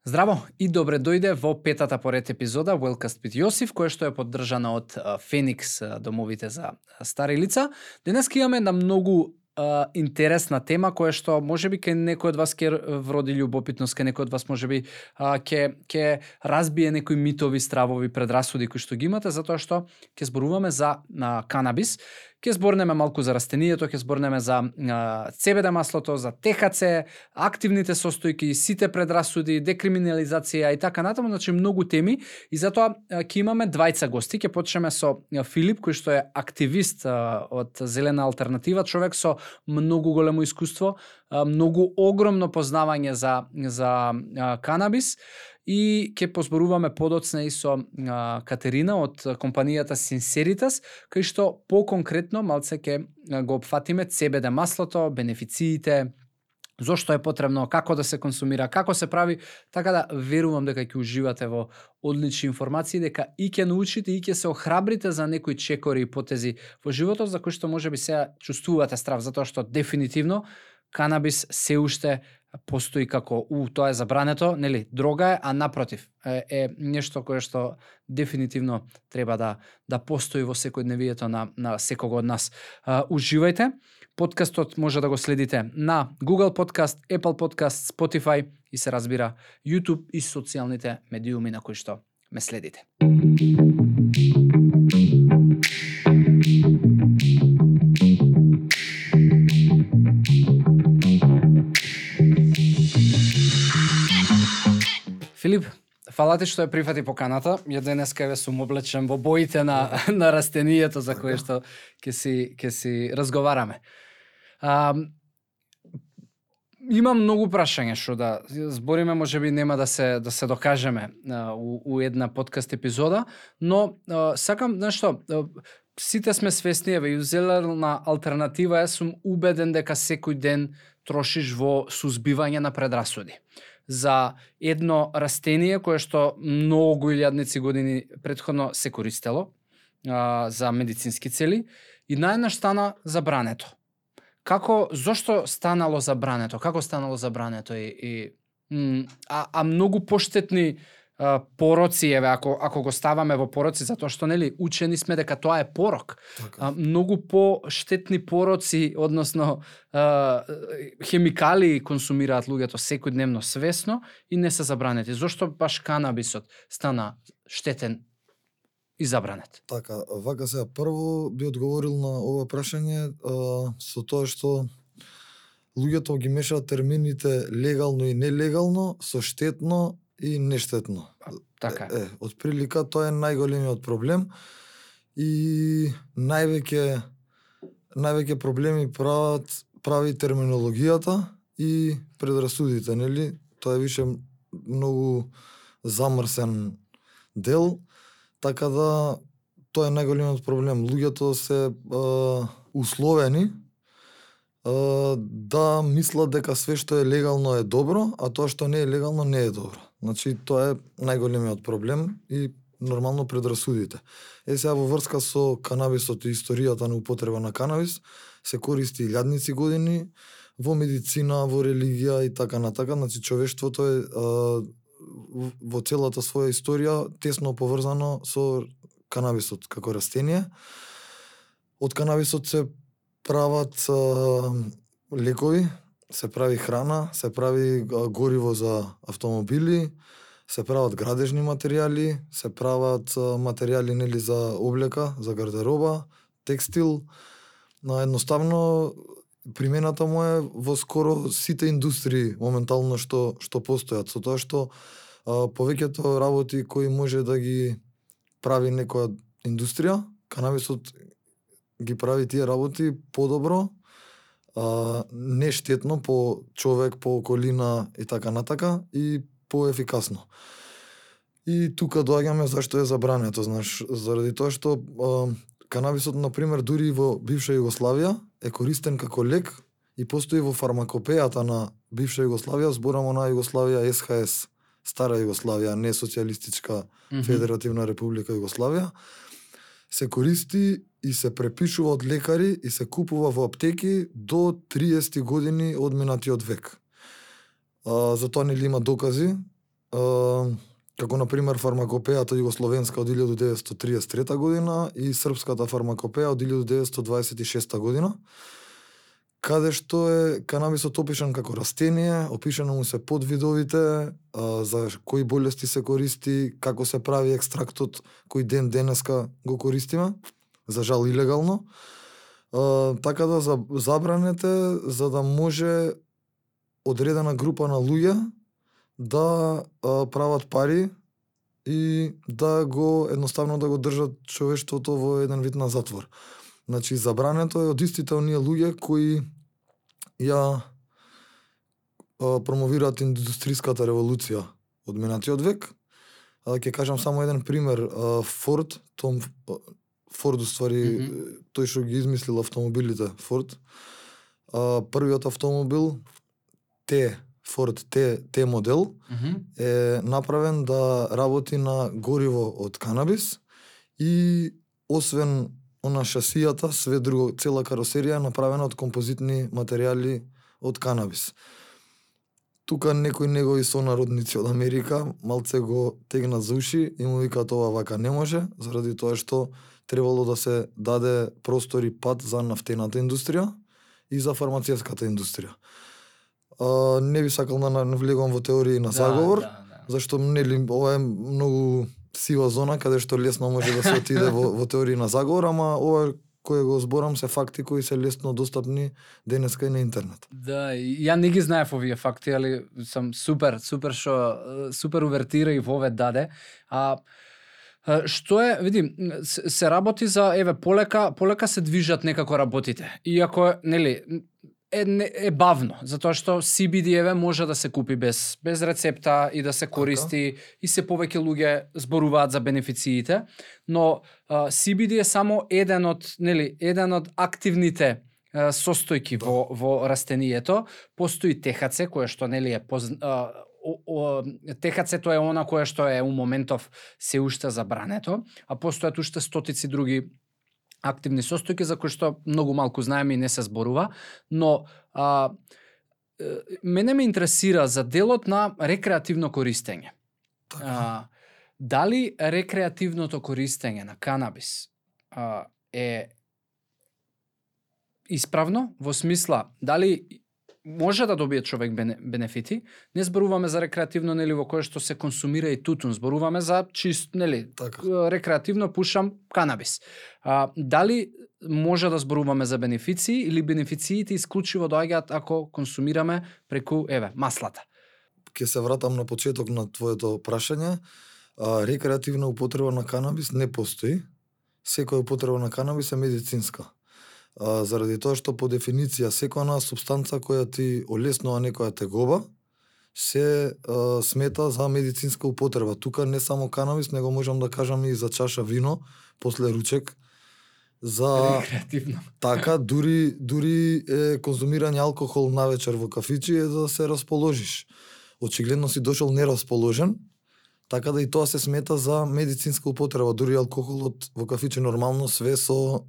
Здраво и добре дојде во петата поред епизода Wellcast with Јосиф, која што е поддржана од Феникс домовите за стари лица. Денеска имаме една многу интересна тема која што можеби кај некој од вас ќе вроди љубопитност, кај некој од вас можеби ќе разбие некои митови, стравови, предрасуди кои што ги имате, затоа што ќе зборуваме за канабис. Ќе зборнеме малку за растенијето, ќе зборнеме за CBD маслото, за ТХЦ, активните состојки, сите предрасуди, декриминализација и така натаму, значи многу теми и затоа ќе имаме двајца гости. Ќе почнеме со Филип, кој што е активист од Зелена алтернатива, човек со многу големо искуство, многу огромно познавање за канабис. И ќе позборуваме подоцна и со Катерина од компанијата Sinceritas, кај што по-конкретно малце ќе го опфатиме CBD маслото, бенефициите, зошто е потребно, како да се консумира, како се прави, така да верувам дека ќе уживате во одлични информации, дека и ќе научите и ќе се охрабрите за некои чекори и потези во животот за кои што можеби сега чувствувате страв, затоа што дефинитивно канабис се уште постои како тоа е забрането, нели, дрога е, а напротив е нешто кое што дефинитивно треба да постои во секојдневието на секого од нас. Уживајте. Подкастот може да го следите на Google Podcast, Apple Podcast, Spotify и се разбира YouTube и социјалните медиуми на кои што ме следите. Филип, фала ти што ја прифати поканата. Ја денеска ве сум облечен во боите на растенијето за кое што ќе си разговараме. Имам многу прашања што да збориме, можеби нема да се докажеме у една подкаст епизода, но сакам нешто, сите сме свесни, еве, Зелена алтернатива е, сум убеден дека секој ден трошиш во сузбивање на предрасуди за едно растение кое што многу илјадници години претходно се користело за медицински цели и наеднаш стана забрането. Зошто станало забрането? Како станало забрането? А многу поштетни пороци, еве, ако го ставаме во пороци, затоа што нели учени сме дека тоа е порок. Многу поштетни пороци, односно хемикали консумираат луѓето секојдневно свесно и не се забранети. Зошто баш канабисот стана штетен и забранет? Така, вака сега прво би одговорил на ова прашање со тоа што луѓето ги мешаат термините легално и нелегално со штетно и нештетно. Така. Од прилика тоа е најголемиот проблем и највеќе проблеми прави терминологијата и предрасудите, нели? Тоа е више многу замрсен дел, така да тоа е најголемиот проблем. Луѓето се условени да мислат дека све што е легално е добро, а тоа што не е легално не е добро. Значи, тоа е најголемиот проблем и нормално предрасудите. Сега во врска со канабисот и историјата на употреба на канабис, се користи илјадници години во медицина, во религија и така натака. Значи, човештвото е во целата своја историја тесно поврзано со канабисот како растение. Од канабисот се прават лекови, се прави храна, се прави гориво за автомобили, се прават градежни материјали, се прават материјали, нели, за облека, за гардероба, текстил. Едноставно примената му е во скоро сите индустрии моментално што постојат, со тоа што повеќето работи кои може да ги прави некоја индустрија, канабисот ги прави тие работи подобро, нештетно по човек, по околина и така натака и поефикасно. И тука доаѓаме зашто е забрането, знаеш, заради тоа што канабисот, например, дури во бивша Југославија е користен како лек и постои во фармакопејата на бивша Југославија, зборамо на Југославија СХС, стара Југославија, не социјалистичка федеративна република Југославија, се користи и се препишува од лекари и се купува во аптеки до 30 години од минатиот век. За тоа нели има докази како на пример фармакопејата југословенска од 1933 година и српската фармакопеја од 1926 година, каде што е канабисот опишан како растение, опишано му се подвидовите, за кои болести се користи, како се прави екстрактот, кој ден денеска го користиме, за жал илегално. Така да забранете за да може одредена група на луѓе да прават пари и да го едноставно да го држат човештвото во еден вид на затвор. Значи забрането е од истите оние луѓе кои ја промовираат индустријската револуција од минатиот век. Ќе кажам само еден пример. Форд уствари тој што ги измислил автомобилите, Форд. Првиот автомобил Форд Т модел е направен да работи на гориво од канабис и освен она шасијата, све друго, цела каросерија е направена од композитни материјали од канабис. Тука некои негови сонародници од Америка малце го тегнат за уши и му викаат ова вака не може, заради тоа што требало да се даде простор и пат за нафтената индустрија и за фармацевската индустрија. Не би сакал да навлегувам во теории на заговор, зашто нели ова е многу сива зона каде што лесно може да се отиде во теории на заговор, ама ова кој го зборам се факти кои се лесно достапни денеска и на интернет. Да, ја не ги знаев овие факти, али сум супер увертира и во ове даде. Што е, види, се работи за полека се движат некако работите. Иако нели е бавно, затоа што CBD може да се купи без рецепта и да се користи и се повеќе луѓе зборуваат за бенефициите, но CBD е само еден од активните состојки во растението. Постои THC кое што нели е THC-то е она кое што е у моментов се уште забрането, а постојат уште стотици други активни состојки за кои што многу малку знаеме и не се зборува, но мене ме интересира за делот на рекреативно користење. Дали рекреативното користење на канабис е исправно во смисла дали може да добие човек бенефити? Не зборуваме за рекреативно нели во кое што се консумира и тутун, зборуваме за чист нели рекреативно пушам канабис. Дали може да зборуваме за бенефиции или бенефициите исклучиво доаѓаат ако консумираме преку маслата? Ќе се вратам на почеток на твоето прашање. Рекреативна употреба на канабис не постои. Секоја употреба на канабис е медицинска. Заради тоа што по дефиниција секоја супстанца која ти олеснува некоја тегоба се смета за медицинска употреба. Тука не само канабис, него можам да кажам и за чаша вино после ручек. За рекреативно. Така, дури е конзумирање алкохол навечер во кафичи е да се расположиш. Очигледно си дошол нерасположен, така да и тоа се смета за медицинска употреба. Дури алкохолот во кафичи нормално све со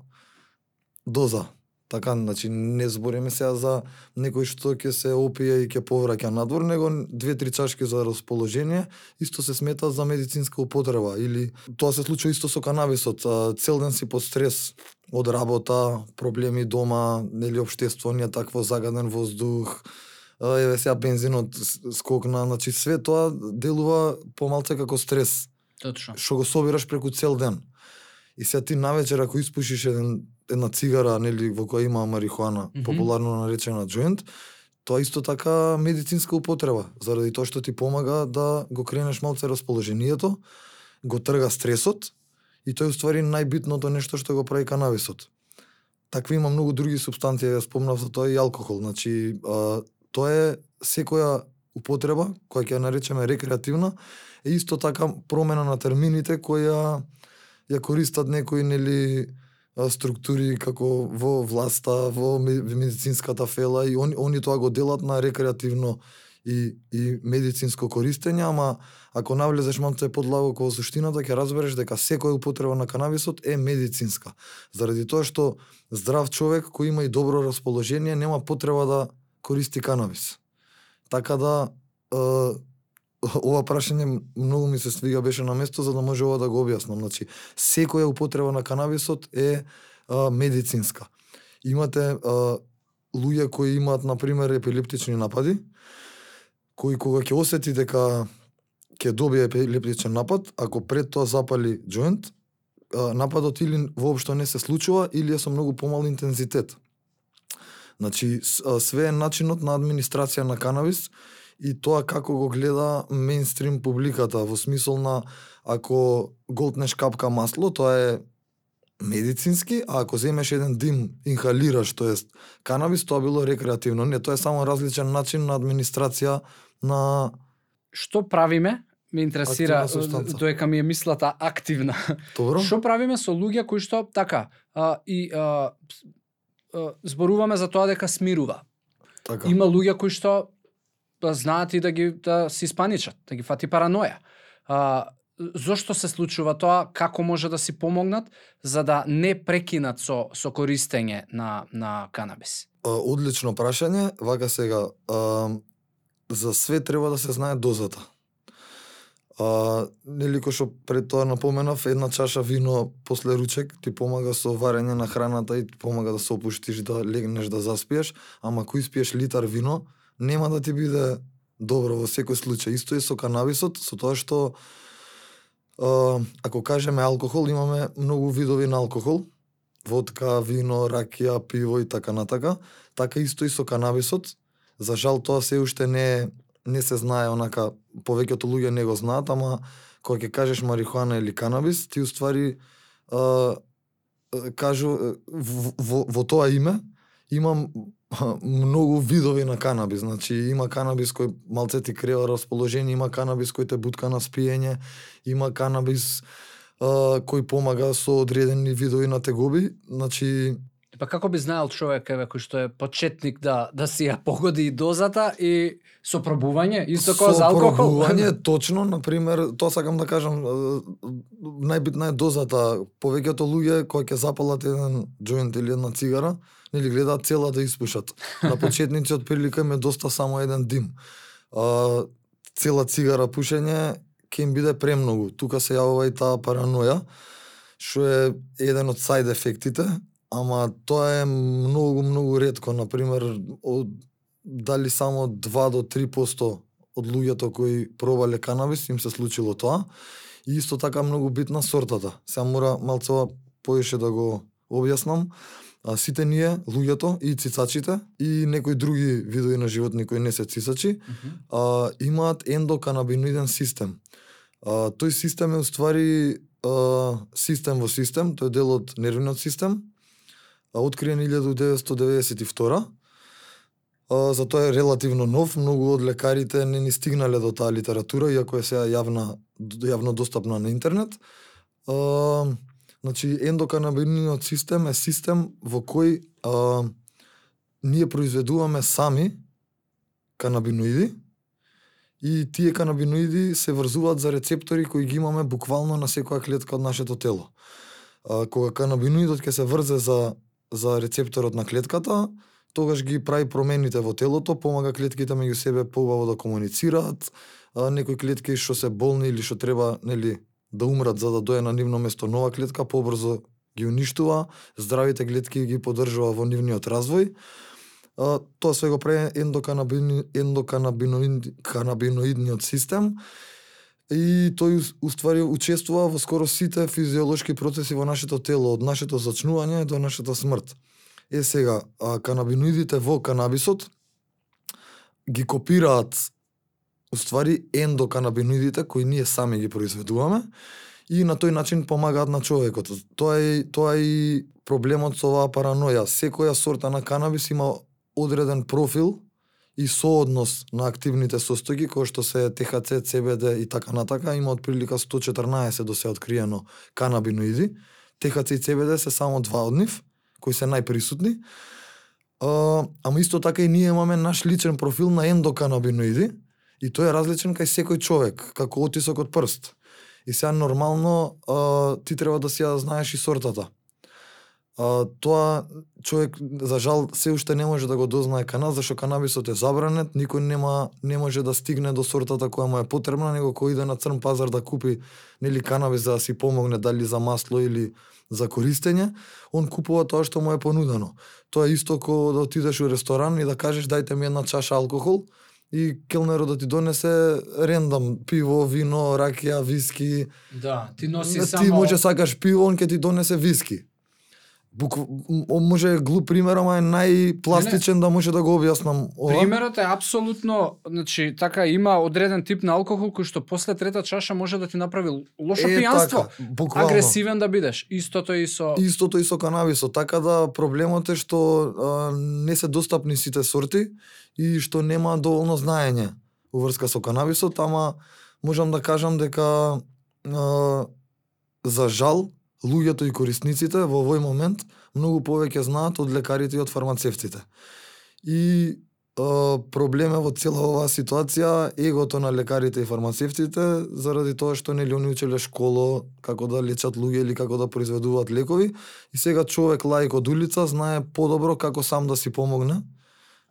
доза. Така, значи не збориме сега за некој што ќе се опие и ќе повраќа надвор, него 2-3 чашки за расположение исто се смета за медицинска употреба. Или тоа се случува исто со канабисот. Цел ден си под стрес од работа, проблеми дома, нели општествување, такво загаден воздух, еве сега бензинот скокна, значи све тоа делува помалце како стрес. Точно. Што го собираш преку цел ден. И сега ти навечер ако испушиш една цигара, нели, во која има марихуана, популарно наречена джоинт, тоа исто така медицинска употреба, заради тоа што ти помага да го кренеш малце расположението, го трга стресот и тоа е уствари најбитното нешто што го прави канабисот. Такви има многу други супстанции, ја спомнав за тоа и алкохол, значи тоа е секоја употреба, која ќе ја наречеме рекреативна, е исто така промена на термините која ја користат некои нели структури како во власта, во медицинската фела и они тоа го делат на рекреативно и медицинско користење, ама ако навлезеш малце подлабоко во суштината ќе разбереш дека секоја употреба на канабисот е медицинска. Заради тоа што здрав човек кој има и добро расположение нема потреба да користи канабис. Така да ова прашање многу ми се свига, беше на место за да може ова да го објаснам. Значи, секоја употреба на канабисот е медицинска. Имате луѓе кои имаат, например, епилептични напади, кои кога ќе осети дека ќе добие епилептичен напад, ако пред тоа запали џоинт, нападот или воопшто не се случува, или е со многу помал интензитет. Значи, све е начинот на администрација на канабис и тоа како го гледа мејнстрим публиката, во смисол на ако голтнеш капка масло, тоа е медицински, а ако земеш еден дим, инхалираш, тоест канабис, тоа било рекреативно. Не, тоа е само различен начин на администрација на... Што правиме? Ме интересира, доека ми е мислата активна. Добро. Што правиме со луѓе кои што, така, зборуваме за тоа дека смирува. Така. Има луѓе кои што знаат и да се испаничат, да ги фати параноја. Зошто се случува тоа, како може да си помогнат за да не прекинат со користење на канабис? Одлично прашање, вака сега, за све треба да се знае дозата. Нели кој што пред тоа напоменав, една чаша вино после ручек ти помага со варење на храната и ти помага да се опуштиш, да легнеш, да заспиеш, ама ако испиеш литар вино, нема да ти биде добро во секој случај. Исто е со канабисот, со тоа што ако кажеме алкохол, имаме многу видови на алкохол. Водка, вино, ракија, пиво и така натака. Така исто и со канабисот. За жал тоа се уште не се знае, онака, повеќето луѓе не го знаат, ама кога ќе кажеш марихуана или канабис, ти уствари кажу во тоа име има многу видови на канабис. Значи има канабис кој малце ти крева расположение, има канабис кој те бутка на спиење, има канабис кој помага со одредени видови на тегоби. Значи Па како би знаел човек кој што е почетник да си ја погоди и дозата и со пробување, исто како за алкохол? Со пробување, точно, например, тоа сакам да кажам, најбитна е дозата. Повеќето луѓе кои ќе запалат еден џоинт или една цигара, нели гледаат цела да испушат. На почетници од прилика им е доста само еден дим. Цела цигара пушење ќе им биде премногу. Тука се јавува и таа параноја, што е еден од сајд ефектите. Ама тоа е многу ретко, например, дали само 2 до 3% од луѓето кои пробале канабис им се случило тоа. И исто така многу битна сортата. Сега мора малцова поише да го објаснам. Сите ние, луѓето и цицачите и некои други видови на животни кои не се цицачи, имаат ендоканабиноиден систем. Тој систем е уствари систем во систем, тој е дел од нервниот систем, откриен 1992. За тоа е релативно нов, многу од лекарите не ни стигнале до таа литература, иако е сега јавно достапна на интернет. Значи, ендоканабиноидниот систем е систем во кој ние произведуваме сами канабиноиди и тие канабиноиди се врзуваат за рецептори кои ги имаме буквално на секоја клетка од нашето тело. Кога канабиноидот ќе се врзе за рецепторот на клетката, тогаш ги прави промените во телото, помага клетките меѓу себе поубаво да комуницираат, некои клетки што се болни или што треба, нели, да умрат за да дое на нивно место нова клетка, побрзо ги уништува, здравите клетки ги поддржува во нивниот развој. Тоа се го прави ендоканабиноидниот систем и тој уствари учествува во скоро сите физиолошки процеси во нашето тело, од нашето зачнување до нашата смрт. Сега, канабиноидите во канабисот ги копираат уствари ендоканабиноидите кои ние сами ги произведуваме и на тој начин помагаат на човекот. Тоа е и проблемот со оваа параноја. Секоја сорта на канабис има одреден профил и сооднос на активните состојки, кои што се ТХЦ, CBD и така натака. Има отприлика 114 до се откриено канабиноиди. ТХЦ и CBD се само 2 од нив, кои се најприсутни. Ама исто така и ние имаме наш личен профил на ендоканабиноиди и тој е различен кај секој човек, како отисок од прст. И сега нормално ти треба да си ја знаеш и сортата. Тоа човек за жал се уште не може да го дознае кана, зашто канабисот е забранет, никој не може да стигне до сортата која му е потребна, него кој иде на црн пазар да купи нели канабис за да си помогне дали за масло или за користење, он купува тоа што му е понудено. Тоа е исто како да отидеш у ресторан и да кажеш дајте ми една чаша алкохол и келнерот да ти донесе рендам пиво, вино, ракија, виски. Да, ти носи Ти само може сакаш пиво, он ќе ти донесе виски. Може глуп пример, ама е најпластичен да може да го објаснам ова. Примерот е апсолутно, значи така има одреден тип на алкохол кој што после трета чаша може да ти направи лошо пијанство. Така, буквално. Агресивен да бидеш. Истото и со канабисот, така да проблемот е што не се достапни сите сорти и што нема доволно знаење уврска со канабисот, ама можам да кажам дека за жал луѓето и корисниците во овој момент многу повеќе знаат од лекарите и од фармацевтите. И проблем е во цела оваа ситуација егото на лекарите и фармацевтите заради тоа што нели они учеле школо како да лечат луѓе или како да произведуваат лекови и сега човек лаик од улица знае подобро како сам да си помогне,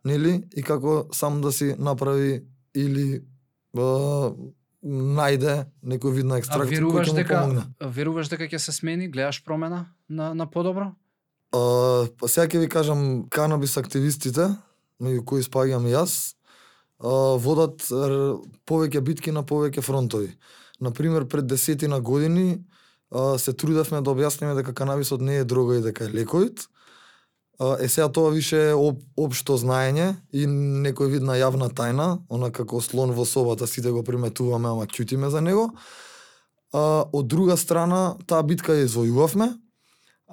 нели, и како сам да си направи или најде некој вид на екстракт кој ќе му помогне. Веруваш дека ќе се смени, гледаш промена на подобро? Сега ќе ви кажам, канабис активистите, меѓу кои спаѓам и јас, водат повеќе битки на повеќе фронтови. Например, пред 10 години се трудевме да објасниме дека канабисот не е дрога и дека е лековит. Сега тоа више е општо знаење и некој вид на јавна тајна, она како слон во собата, сите го приметуваме, ама ќутиме за него. Од друга страна, таа битка ја извојувавме,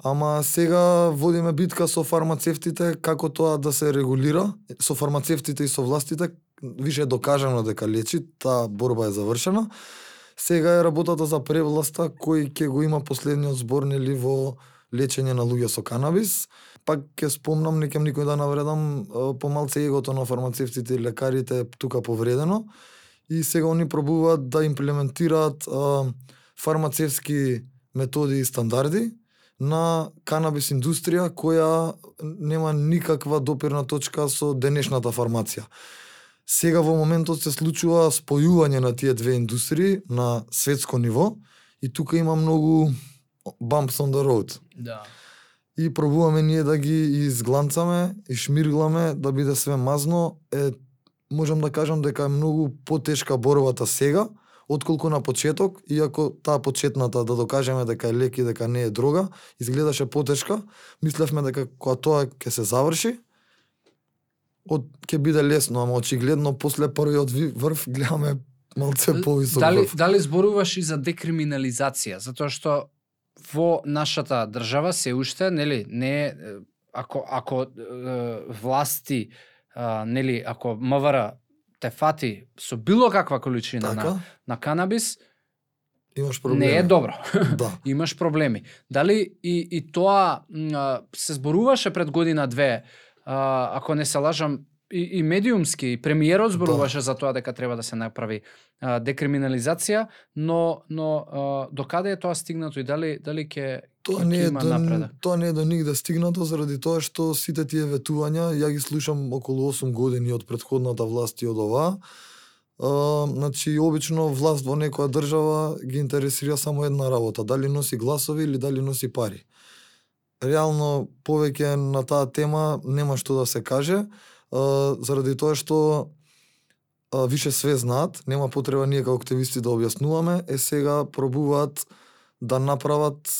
ама сега водиме битка со фармацевтите како тоа да се регулира, со фармацевтите и со властите, више е докажано дека лечи, таа борба е завршена. Сега е работата за превласта кој ќе го има последниот збор нели во лечење на луѓе со канабис. Пак ќе спомнам, не кем никој да навредам, помалце егото на фармацевтите и лекарите тука повредено и сега они пробуваат да имплементираат фармацевски методи и стандарди на канабис индустрија која нема никаква допирна точка со денешната фармација. Сега во моментот се случува спојување на тие две индустрии на светско ниво и тука има многу bumps on the road. Да. И пробуваме ние да ги изгланцаме и шмиргламе да биде све мазно. Можам да кажам дека е многу потешка борбата сега отколку на почеток, иако таа почетната да докажеме дека е лек и дека не е дрога, изгледаше потешка. Мислевме дека кога тоа ќе се заврши, ќе биде лесно, ама очигледно после првиот врв гледаме малце повисок врв. Дали зборуваш и за декриминализација, затоа што во нашата држава се уште, нели, не ако власти, нели, ако МВР те фати со било каква количина така? на канабис, имаш проблеми. Не е добро. Да. Имаш проблеми. Дали и тоа се зборуваше пред година-две, ако не се лажам, и медиумски, и премиерот зборуваше за тоа дека треба да се направи декриминализација, но до каде е тоа стигнато и дали ќе има напредок? Тоа не е до нигде стигнато заради тоа што сите тие ветувања, ја ги слушам околу 8 години од претходната власт и од оваа. Значи, обично власт во некоја држава ги интересира само една работа, дали носи гласови или дали носи пари. Реално, повеќе на таа тема нема што да се каже, заради тоа што више све знаат, нема потреба ние како активисти да објаснуваме, сега пробуваат да направат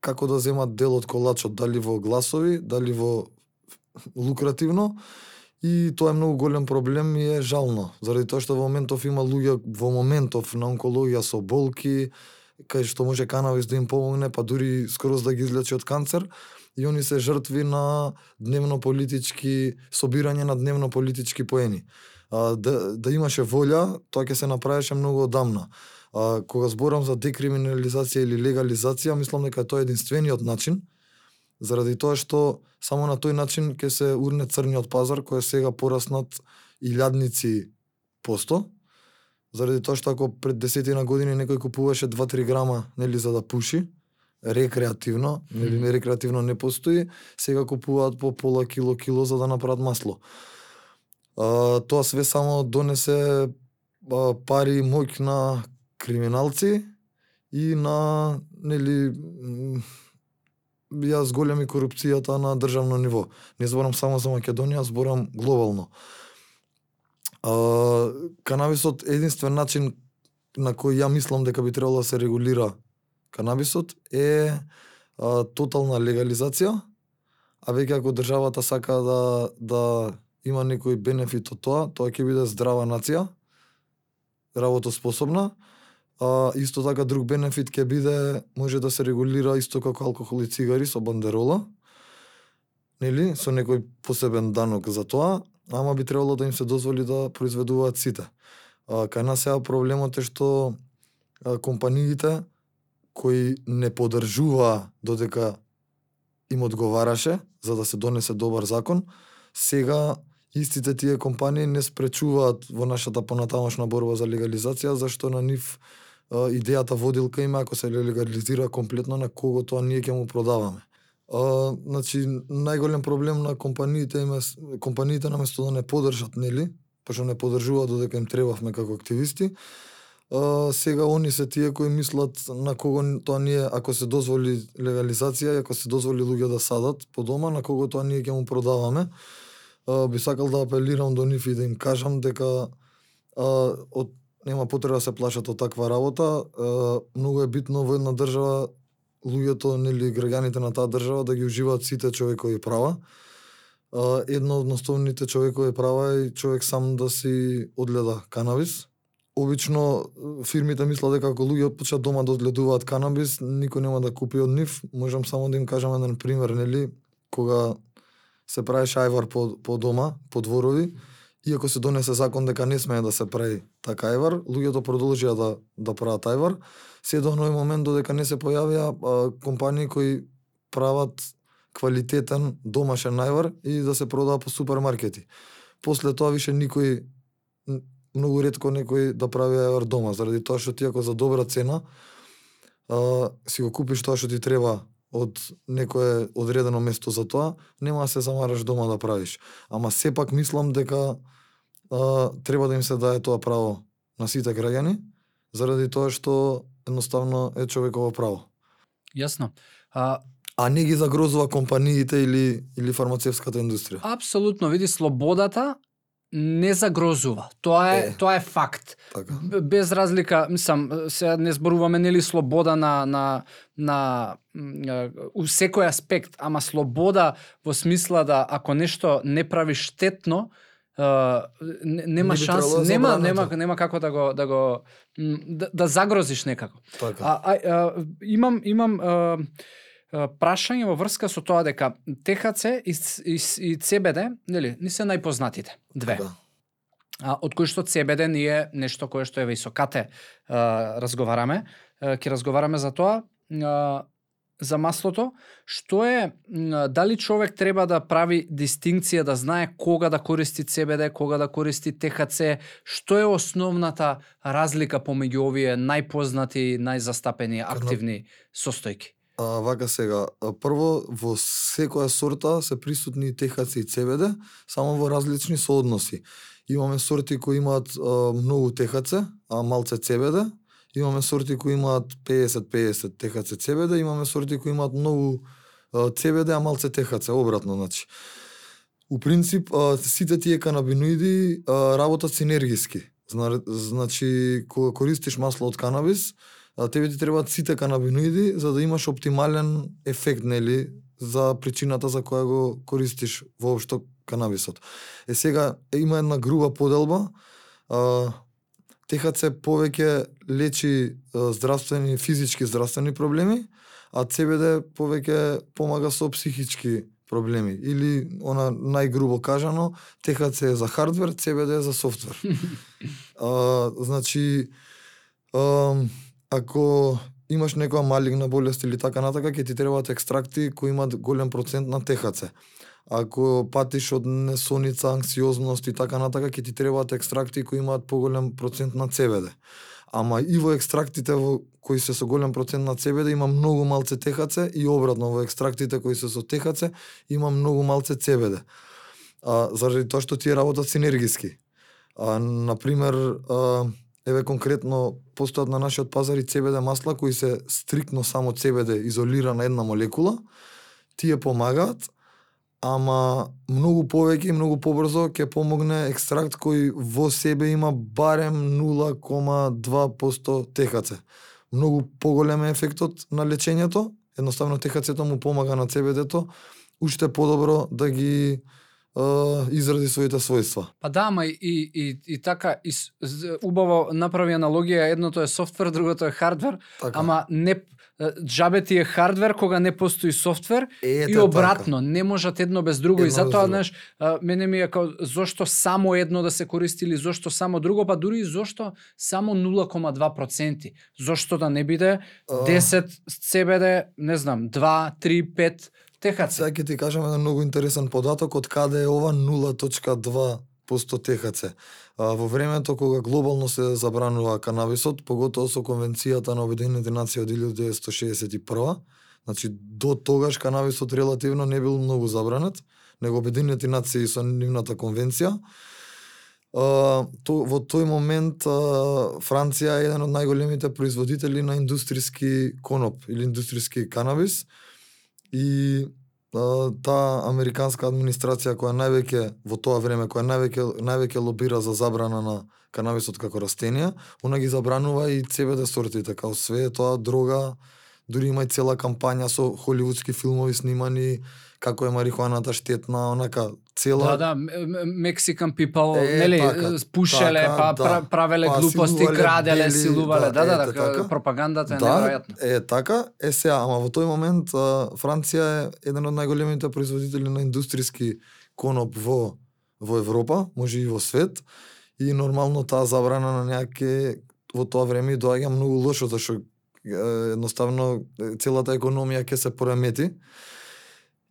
како да земат дел од колачот, дали во гласови, дали во лукративно, и тоа е многу голем проблем и е жално, заради тоа што во моментов има луѓе во моментов на онкологија со болки, кај што може канабис да им помогне, па дури скороз да ги излечи од канцер, и они се жртви на дневно политички собирање на дневно политички поени. Да имаше волја, тоа ќе се направеше многу одамна. Кога зборам за декриминализација или легализација, мислам дека тоа е единствениот начин, заради тоа што само на тој начин ќе се урне црниот пазар кој е сега пораснат илјадници посто, заради тоа што ако пред 10 години некој купуваше 2-3 грама, нели, за да пуши, рекреативно, нели рекреативно не постои, сега купуваат по пола кило за да направат масло. Тоа све само донесе пари и моќ на криминалци и на нели ја зголеми корупцијата на државно ниво. Не зборам само за Македонија, зборам глобално. Канабисот е единствен начин на кој ја мислам дека би требало да се регулира канабисот е тотална легализација, а веќе ако државата сака да има некој бенефит од тоа ќе биде здрава нација, работоспособна. Исто така друг бенефит ќе биде, може да се регулира исто како алкохол и цигари со бандерола, нели, со некој посебен данок за тоа, ама би требало да им се дозволи да произведуваат сите. Кај нас сега проблемот е што компаниите кои не поддржуваа додека им одговараше за да се донесе добар закон, сега истите тие компании не спречуваат во нашата понатамошна борба за легализација, зашто на нив идејата водилка има ако се легализира комплетно на кого тоа ние ќе му продаваме. Значи најголем проблем на компаниите наместо да не поддржат, нели, пошто не поддржуваат додека им требавме како активисти, сега они се тие кои мислат на кого тоа ние, ако се дозволи легализација, ако се дозволи луѓе да садат по дома, на кого тоа ние ќе му продаваме. Би сакал да апелирам до нив и да им кажам дека нема потреба да се плашат од таква работа. Многу е битно во една држава луѓето, нели, граѓаните на таа држава да ги уживаат сите човекови права. Едно од основните човекови права е човек сам да си одгледа канабис. Обично фирмите мислат дека ако луѓе почнат дома да одгледуваат канабис, никој нема да купи од нив. Можам само да им кажам еден пример, нели, кога се правеше ајвар по дома, по дворови, иако се донесе закон дека не смее да се прави така ајвар, луѓето продолжија да прават ајвар, се до оној момент додека не се појавија компании кои прават квалитетен домашен ајвар и да се продава по супермаркети. После тоа више никој, многу ретко некој да прави ајвар дома, заради тоа што ти ако за добра цена си го купиш тоа што ти треба од некое одредено место за тоа, нема да се замараш дома да правиш. Ама сепак мислам дека треба да им се даде тоа право на сите граѓани, заради тоа што едноставно е човеково право. Јасно. А не ги загрозува компаниите или фармацевската индустрија. Апсолутно, види, слободата не загрозува. Тоа е факт. Така. Без разлика, мислам, сега не зборуваме нели слобода на у секој аспект, ама слобода во смисла да ако нешто не прави штетно, нема шанс, нема како да загрозиш некако. Така. Имам прашање во врска со тоа дека ТХЦ и ЦБД, нели, не се најпознатите две. Да. Од кои што ЦБД ние нешто кое што е високате разговараме, ќе разговараме за тоа, за маслото, што е, дали човек треба да прави дистинкција, да знае кога да користи ЦБД, кога да користи ТХЦ, што е основната разлика помеѓу овие најпознати, најзастапени активни состојки? Вака сега, прво во секоја сорта се присутни ТХЦ и ЦБД, само во различни соодноси. Имаме сорти кои имаат многу ТХЦ, а малце ЦБД. Имаме сорти кои имаат 50-50 ТХЦ ЦБД, имаме сорти кои имаат многу ЦБД, а малце ТХЦ, обратно, значи. У принцип, сите тие канабиноиди работат синергиски. Значи, кога користиш масло од канабис, тебе ти требаат сите канабиноиди за да имаш оптимален ефект, нели, за причината за која го користиш воопшто канабисот. Сега има една груба поделба. ТХЦ повеќе лечи здравствени, физички здравствени проблеми, а ЦБД повеќе помага со психички проблеми. Или, она најгрубо кажано, ТХЦ е за хардвер, ЦБД е за софтвер. Значи, ако имаш некоја малигна болест или така натака, ќе ти требаат екстракти кои имаат голем процент на ТХЦ. Ако патиш од несоница, анксиозност и така натака, ќе ти требаат екстракти кои имаат поголем процент на ЦБД. Ама и во екстрактите кои се со голем процент на CBD има многу малце THC и обратно во екстрактите кои се со THC има многу малце CBD. Заради тоа што тие работат синергиски. Например, еве конкретно постојат на нашиот пазар и CBD масла кои се стриктно само CBD изолирана една молекула. Тие помагаат, ама многу повеќе и многу побрзо ќе помогне екстракт кој во себе има барем 0,2% THC. Многу поголем е ефектот на лечењето, едноставно THC-то му помага на CBD-то уште подобро да ги изради своите својства. Па да, ама и така убаво направи аналогија, едното е софтвер, другото е хардвер, Така. ама не џабе ти е хардвер кога не постои софтвер и обратно, така. Не можат едно без друго. Едно и затоа, знаеш, мене ми е као зошто само едно да се користи или зошто само друго, па дури и зошто само 0,2%. Зошто да не биде 10 CBD, не знам, 2, 3, 5 THC. Сега ќе ти кажам еден многу интересен податок од каде е ова 0,2% THC. Во времето кога глобално се забранува канабисот, поготово со Конвенцијата на Обединените нации од 1961, значи до тогаш канабисот релативно не бил многу забранет, него Обединените нации со нивната конвенција. Во тој момент Франција е еден од најголемите производители на индустријски коноп или индустријски канабис. И таа американска администрација која највеќе во тоа време која највеќе лобира за забрана на канабисот како растенија, она ги забранува и CBD сортите, као све тоа дрога, дури има и цела кампања со холивудски филмови снимани како е марихуаната штетна, онака цела. Да, Mexican people, нели, така, пушеле, така, па правеле глупости, краделе, силувале, така, пропагандата е неверојатна. Така, сега, ама во тој момент Франција е еден од најголемите производители на индустријски коноп во Европа, може и во свет, и нормално таа забрана на някаке во тоа време доаѓа многу лошо, зашто едноставно целата економија ќе се поремети.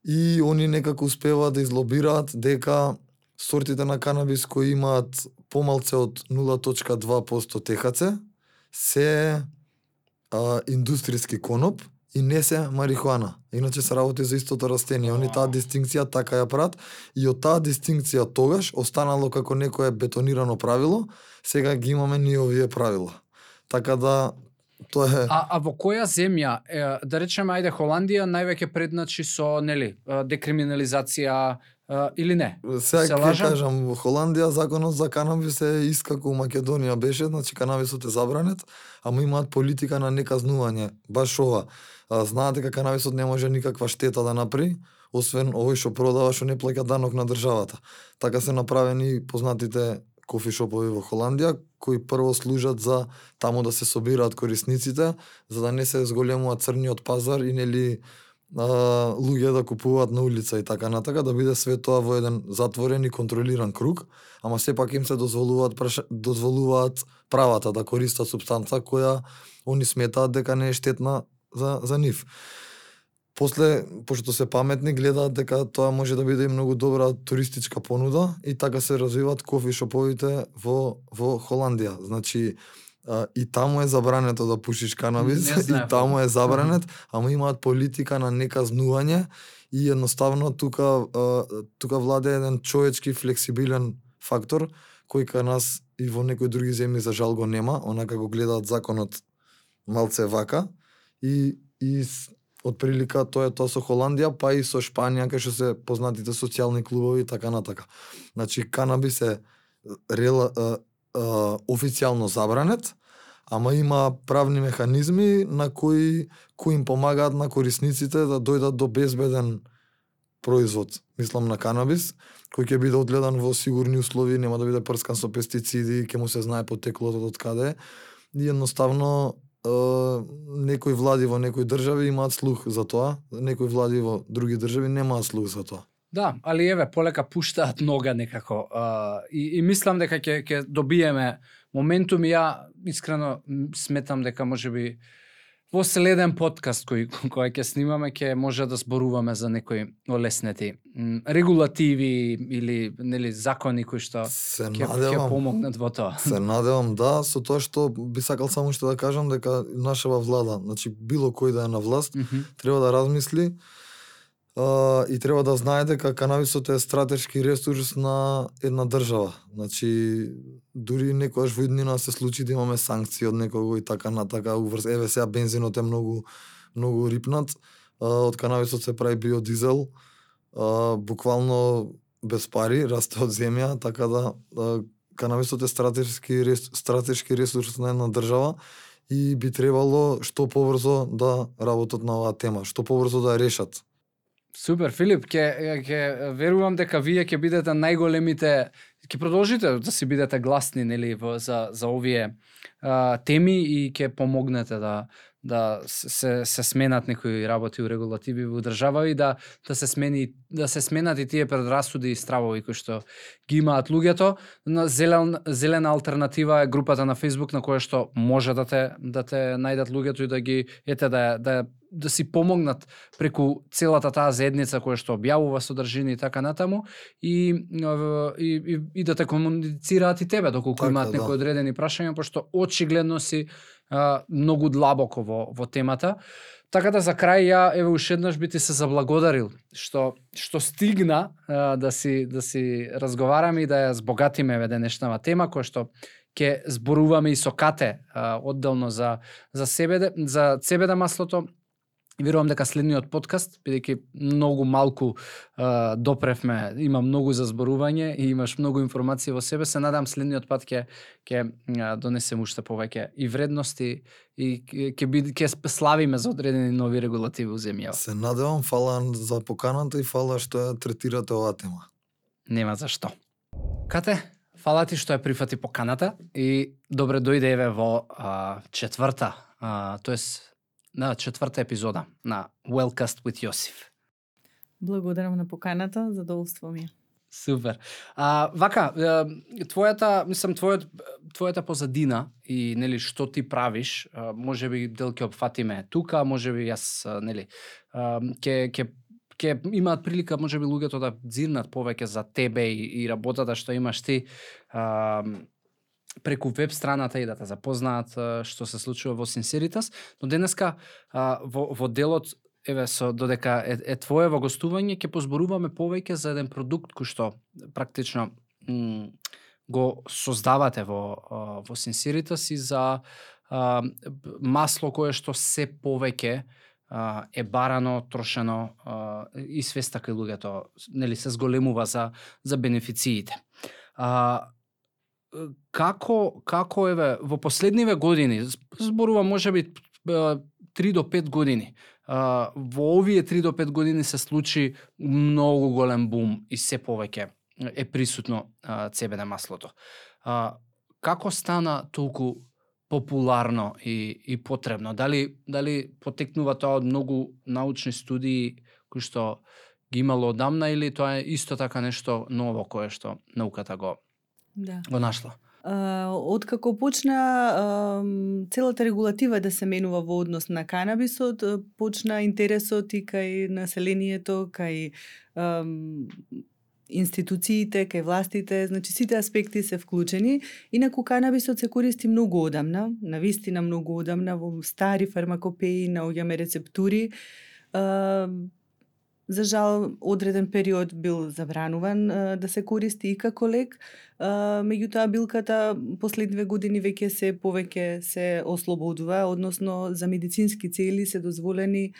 И они некако успеваат да излобираат дека сортите на канабис кои имаат помалце од 0,2% THC се индустријски коноп и не се марихуана. Иначе се работи за истото растение. Они таа дистинкција така ја прават и од таа дистинкција тогаш останало како некое бетонирано правило, сега ги имаме ние овие правила. Така да тоа е. А во која земја, да речеме, ајде Холандија највеќе предначи со, нели, декриминализација или не? Сега ќе кажам, во Холандија законот за канабис е ист како во Македонија беше, значи канабисот е забранет, ама имаат политика на неказнување. Баш ова. Знаат дека канабисот не може никаква штета да направи, освен овој што продава што не плаќа данок на државата. Така се направени познатите кофишопови во Холандија, кои прво служат за таму да се собираат корисниците, за да не се зголемува црниот пазар и нели луѓе да купуваат на улица и така натака, да биде све тоа во еден затворен и контролиран круг, ама сепак им се дозволуваат правата да користат супстанца која они сметаат дека не е штетна за нив. После, пошто се паметни, гледаат дека тоа може да биде и многу добра туристичка понуда и така се развиваат кофишоповите во Холандија. Значи, и таму е забрането да пушиш канабис, и таму е забранет, ама имаат политика на неказнување и едноставно тука владе еден човечки флексибилен фактор кој кај нас и во некои други земји за жал го нема, онака го гледаат законот малце вака и од прилика тоа е тоа со Холандија, па и со Шпанија, кај што се познатите социјални клубови и така натака. Значи, канабис е официјално забранет, ама има правни механизми на кои им помагаат на корисниците да дојдат до безбеден производ, мислам на канабис, кој ќе биде одгледан во сигурни услови, нема да биде прскан со пестициди, ќе му се знае потеклото од каде. И едноставно некои влади во некои држави имаат слух за тоа, некои влади во други држави немаат слух за тоа. Да, али еве полека пуштаат нога некако и мислам дека ќе добиеме моментум и ја искрено сметам дека можеби во следен подкаст кој ќе снимаме ќе може да зборуваме за некои олеснети регулативи или нели закони кои што ќе помогнат во тоа. Се надевам да, со тоа што би сакал само што да кажам дека нашава влада, значи било кој да е на власт, треба да размисли и треба да знае дека канабисот е стратешки ресурс на една држава. Значи дури некогаш во иднина се случи да имаме санкции од некого и така натака еве сега бензинот е многу рипнат, од канабисот се прави биодизел, буквално без пари, расте од земја, така да канабисот е стратешки ресурс на една држава и би требало што побрзо да работат на оваа тема, што побрзо да ја решат. Супер, Филип, ќе верувам дека вие ќе бидете најголемите, ќе продолжите да си бидете гласни нели за овие теми и ќе помогнете да се сменат некои работи у регулативи во држава и да се сменат и тие предрасуди и стравови кои што ги имаат луѓето. На зелена алтернатива е групата на Facebook на која што може да те најдат луѓето и да ги да си помогнат преку целата таа заедница која што објавува содржини и така натаму и да те комуницираат и тебе доколку имаат некои одредени прашања, пошто очигледно си многу длабоко во темата. Така да за крај ја еве уште еднаш би ти се заблагодарил што стигна да си разговараме и да ја збогатиме еве денешнава тема која што ќе зборуваме и со Кате одделно за цебеда маслото. Верувам дека следниот подкаст, бидејќи многу малку допревме, има многу за зборување и имаш многу информации во себе, се надам следниот пат ќе донесем уште повеќе и вредности и ќе славиме за одредени нови регулативи у земјава. Се надевам, фала за поканата и фала што ја третирате оваа тема. Нема за што. Кате, фала ти што ја прифати поканата и добре дојде еве во четврта, тоест на четврта епизода на Wellcast with Јосиф. Благодарам на поканата, задоволство ми е. Супер. Вака, твојата позадина и нели што ти правиш, можеби дел ќе опфатиме тука, можеби јас нели ќе имаат прилика можеби луѓето да дзирнат повеќе за тебе и работата што имаш ти преку веб страната и да те запознаат што се случува во Синсеритас, но денеска во делот еве додека е твое во гостување ќе позборуваме повеќе за еден продукт кој што практично го создавате во Синсеритас и за масло кое што се повеќе е барано, трошено и свеста кај луѓето нели се зголемува за бенефициите. Како еве во последниве години, зборувам можеби 3 до 5 години, во овие 3 до 5 години се случи многу голем бум и се повеќе е присутно цебеда маслото. Како стана толку популарно и потребно? Дали потекнува тоа од многу научни студии кои што ги имало одамна или тоа е исто така нешто ново кое што науката го нашла? Откако почна целата регулатива да се менува во однос на канабисот, почна интересот и кај населението, кај институциите, кај властите, значи сите аспекти се вклучени. Инаку канабисот се користи многу одамна, навистина многу одамна, во стари фармакопеи наоѓаме рецептури. За жал, одреден период бил забрануван да се користи и како лек, меѓутоа билката последниве години веќе се повеќе се ослободува, односно за медицински цели се дозволено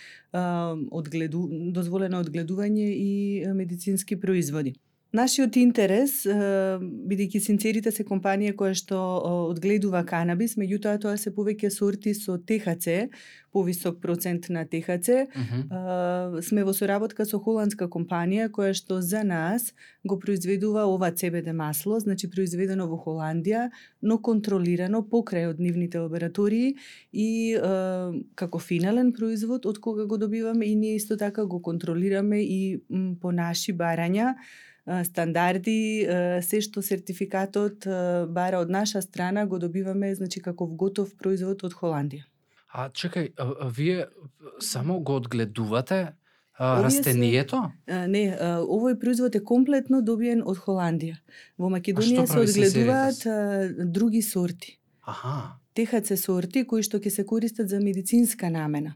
одгледување и медицински производи. Нашиот интерес, бидејќи Синсеритас е компанија која што одгледува канабис, меѓутоа тоа се повеќе сорти со ТХЦ, повисок процент на ТХЦ. Сме во соработка со холандска компанија која што за нас го произведува ова цебеде масло, значи произведено во Холандија, но контролирано покрај од нивните лаборатории и како финален производ од кога го добиваме и ние исто така го контролираме и по наши барања, стандарди, се што сертификатот бара од наша страна го добиваме, значи како готов производ од Холандија. А чекај, вие само го одгледувате Овие се- растението? Не, овој производ е комплетно добиен од Холандија. Во Македонија се прави одгледуваат други сорти. Аха. ТХЦ сорти кои што ќе се користат за медицинска намена.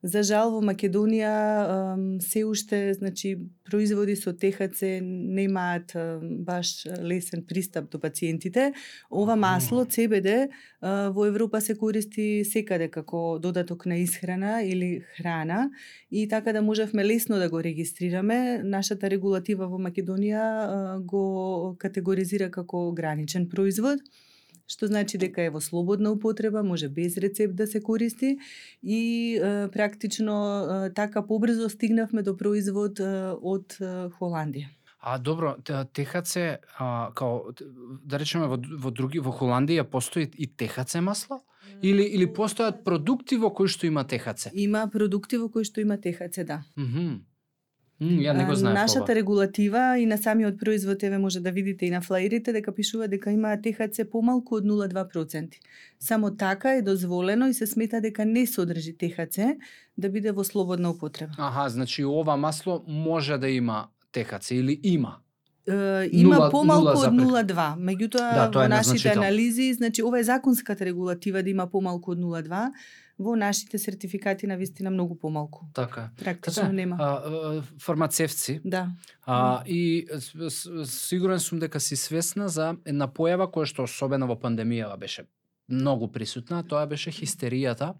За жал во Македонија се уште, значи, производи со ТХЦ немаат баш лесен пристап до пациентите. Ова масло CBD во Европа се користи секаде како додаток на исхрана или храна и така да можевме лесно да го регистрираме. Нашата регулатива во Македонија го категоризира како граничен производ, што значи дека е во слободна употреба, може без рецепт да се користи и практично така побрзо стигнавме до производ од Холандија. А добро, ТХЦ, као, да речеме во Холандија постои и ТХЦ масло? Или постојат продукти во кои што има ТХЦ? Има продукти во кои што има ТХЦ, да. Ја не го знаев Нашата ова. регулатива и на самиот производ, еве може да видите и на флаерите, дека пишува дека има ТХЦ помалку од 0,2%. Само така е дозволено и се смета дека не содржи ТХЦ да биде во слободна употреба. Аха, значи ова масло може да има ТХЦ или има? Има помалку од 0,2. Меѓутоа, тоа е во нашите незначително. анализи, значи ова е законската регулатива да има помалку од 0,2, во нашите сертификати на вистина многу помалку. Така. Практично нема. Фармацевци. Да. И сигурен сум дека си свесна за една појава која што особено во пандемијава беше многу присутна, тоа беше хистеријата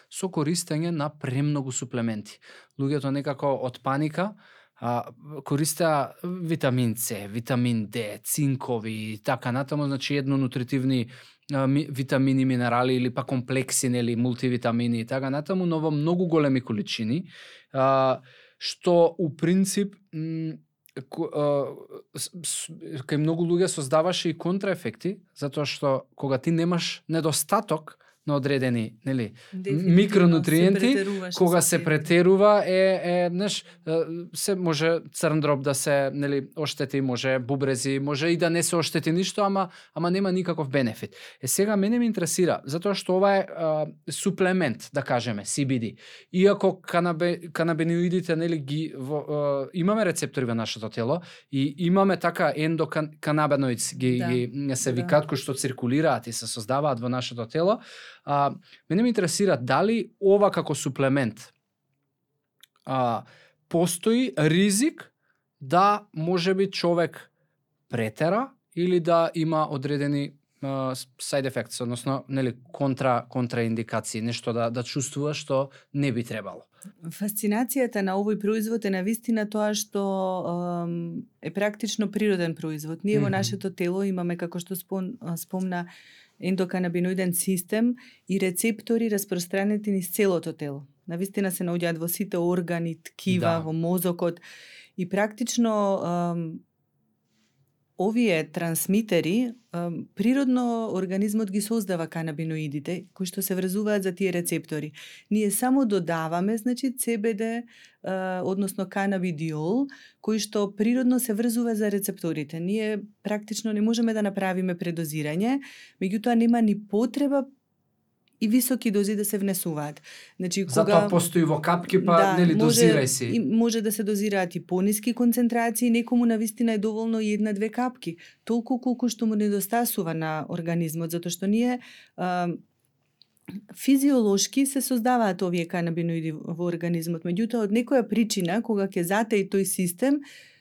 со користење на премногу суплементи. Луѓето некако од паника користеа витамин С, витамин Д, цинкови и така натаму, значи еднонутритивни витамини, минерали или па комплекси, нели, мултивитамини и така натаму, но во многу големи количини, што у принцип кај многу луѓе создаваше и контраефекти, затоа што кога ти немаш недостаток на одредени, нели, микронутриенти, кога се претерува знаеш, се може црн дроб да се, нели, оштети, може бубрези, може и да не се оштети ништо, ама нема никаков бенефит. Сега мене ме интересира, затоа што ова е суплемент, да кажеме, CBD. Иако канабиноидите, нели, имаме рецептори во нашето тело и имаме така ендоканабиноидс ги се викаат, кои што циркулираат и се создаваат во нашето тело. Мене ме интересира дали ова како суплемент постои ризик да можеби човек претера или да има одредени side effects, односно, нели, контраиндикации, нешто да чувствува што не би требало. Фасцинацијата на овој производ е навистина тоа што е практично природен производ. Ние во нашето тело имаме, како што спомна, ендоканабиноиден систем и рецептори распространети низ целото тело. Навистина се наоѓаат во сите органи, ткива, во мозокот и практично овие трансмитери природно организмот ги создава канабиноидите кои што се врзуваат за тие рецептори. Ние само додаваме, значи, CBD, односно канабидиол, кој што природно се врзува за рецепторите. Ние практично не можеме да направиме предозирање, меѓутоа нема ни потреба и високи дози да се внесуваат. Значи, затоа постои во капки, па нели, дозирај си. Може да се дозираат и пониски концентрации, некому навистина е доволно и 1-2 капки, толку колку што му недостасува на организмот, затоа што ние физиолошки се создаваат овие канабиноиди во организмот, меѓутоа од некоја причина, кога ќе затаи тој систем,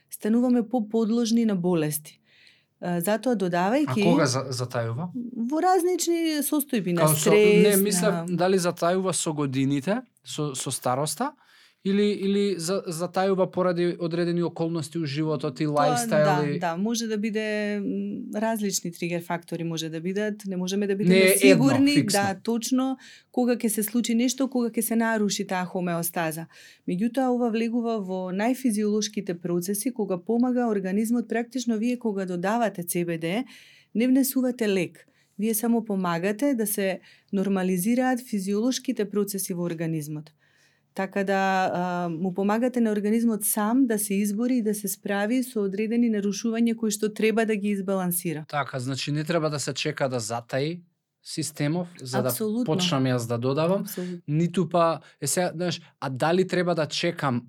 стануваме поподложни на болести. Затоа додавајќи... А кога затајува? Во разнични состојби на стрес. Не, мислам, дали затајува со годините, со староста, или затајува поради одредени околности у животот и лајфстайл? Да, може да биде различни тригер фактори, може да бидат, не можеме да бидеме сигурни, да, точно кога ќе се случи нешто, кога ќе се наруши таа хомеостаза. Меѓутоа, ова влегува во најфизиолошките процеси, кога помага организмот, практично вие кога додавате CBD, не внесувате лек. Вие само помагате да се нормализираат физиолошките процеси во организмот. Така да му помагате на организмот сам да се избори и да се справи со одредени нарушувања кои што треба да ги избалансира. Така, значи не треба да се чека да затаи системов за Апсолутно. да почнам јас да додавам, Апсолутно. ниту па сега, знаеш, а дали треба да чекам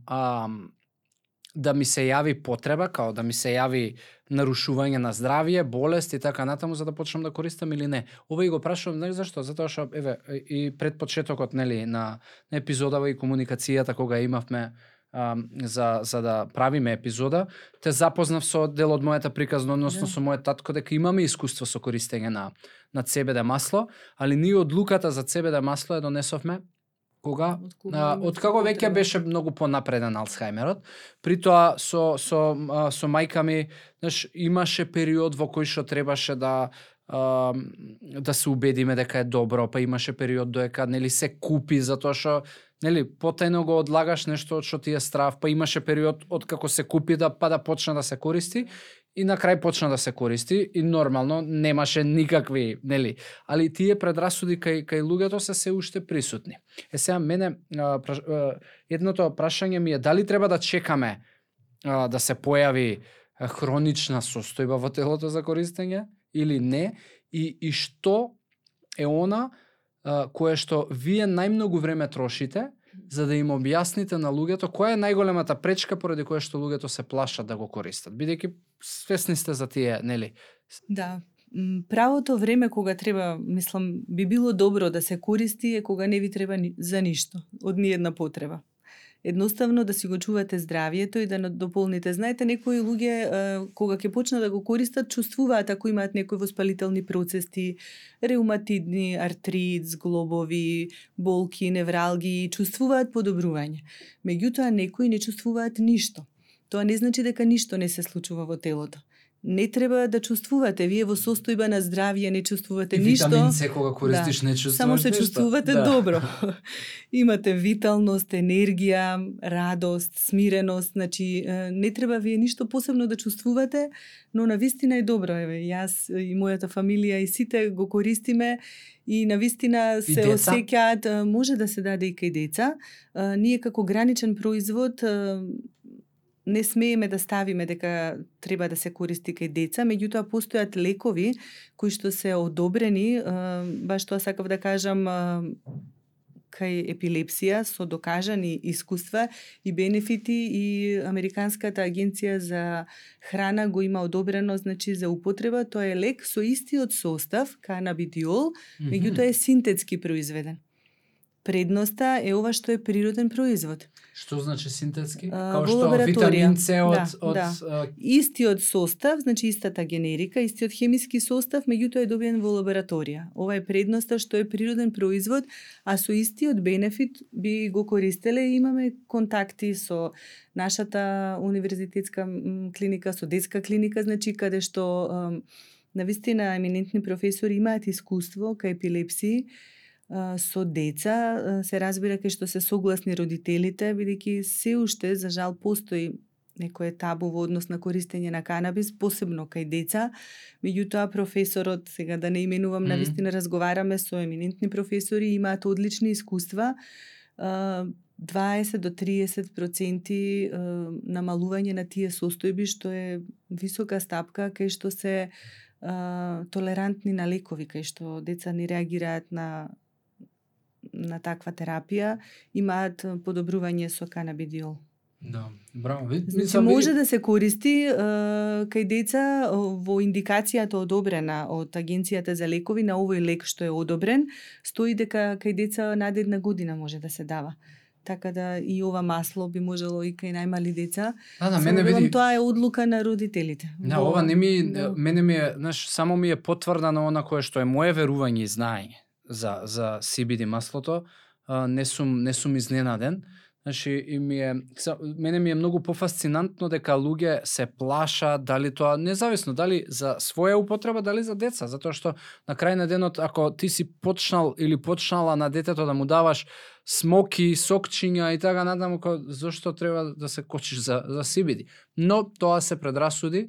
да ми се јави потреба, као да ми се јави нарушување на здравје, болест и така натаму за да почнам да користам или не. Ова и го прашувам, знаеш зашто? Затоа што еве и пред почетокот нели на епизодава и комуникацијата кога имавме за да правиме епизода, те запознав со дел од мојата приказна, односно со мојот татко дека имаме искуство со користење на CBD масло, али ние одлуката за CBD масло ја донесовме кога од како веќе беше многу понапреден Алцхајмерот. При тоа со мајка ми, знаеш, имаше период во кој што требаше да се убедиме дека е добро, па имаше период додека нели се купи затоа што нели потајно го одлагаш нешто што ти е страв, па имаше период од како се купи да почна да се користи и на крај почна да се користи и нормално немаше никакви, нели, али тие предрасуди кај луѓето се уште присутни. Сега мене едното прашање ми е дали треба да чекаме да се појави хронична состојба во телото за користење или не и што е она кое што вие најмногу време трошите за да им објасните на луѓето која е најголемата пречка поради која што луѓето се плашат да го користат, бидејќи свесни сте за тие, нели? Да, правото време кога треба, мислам, би било добро да се користи е кога не ви треба за ништо, од ниедна потреба. Едноставно да си го чувате здравието и да дополните. Знаете, некои луѓе кога ќе почнат да го користат, чувствуваат ако имаат некои воспалителни процеси, реуматидни, артрит, зглобови, болки, невралги, чувствуваат подобрување. Меѓутоа некои не чувствуваат ништо. Тоа не значи дека ништо не се случува во телото. Не треба да чувствувате, вие во состојба на здравје не чувствувате ништо. Витамин С кога користиш не чувствуваш само се ништо. чувствувате добро. Имате виталност, енергија, радост, смиреност, значи не треба вие ништо посебно да чувствувате, но навистина е добро, еве, јас и мојата фамилија и сите го користиме и навистина се осеќаат, може да се даде и кај деца. Ние како граничен производ не смееме да ставиме дека треба да се користи кај деца, меѓутоа постојат лекови кои што се одобрени, баш тоа сакав да кажам, кај епилепсија со докажани искуства и бенефити и Американската агенција за храна го има одобрено, значи за употреба. Тоа е лек со истиот состав, канабидиол, меѓутоа е синтетски произведен. Предноста е ова што е природен производ. Што значи синтетски? Као што витамин С од истиот состав, значи истата генерика, истиот хемиски состав, меѓутоа е добиен во лабораторија. Ова е предноста што е природен производ, а со истиот бенефит би го користеле и имаме контакти со нашата универзитетска клиника, со детска клиника, значи каде што навистина еминентни професори имаат искуство кај епилепсии со деца, се разбира кај што се согласни родителите, бидејќи се уште, за жал, постои некое табу во однос на користење на канабис, посебно кај деца. Меѓутоа, професорот, сега да не именувам, навистина разговараме со еминентни професори, имаат одлични искуства, 20 до 30% намалување на тие состојби, што е висока стапка, кај што се толерантни на лекови, кај што деца не реагираат на таква терапија, имаат подобрување со канабидиол. Да, браво. Значи, може да се користи кај деца во индикацијата одобрена од Агенцијата за лекови, на овој лек што е одобрен, стои дека кај деца над 1 година може да се дава. Така да и ова масло би можело и кај најмали деца. Да, мене види. Тоа е одлука на родителите. Да, ова не ми, мене ми е, знаеш, само ми е потврдано она кое што е мое верување и знаење за CBD маслото. Не сум изненаден. Значи, и мене ми е многу пофасцинантно дека луѓе се плашат дали тоа, независно дали за своја употреба, дали за деца, затоа што на крај на денот, ако ти си почнал или почнала на детето да му даваш смоки, сокчиња и така натаму, зашто треба да се кочиш за CBD? Но тоа се предрасуди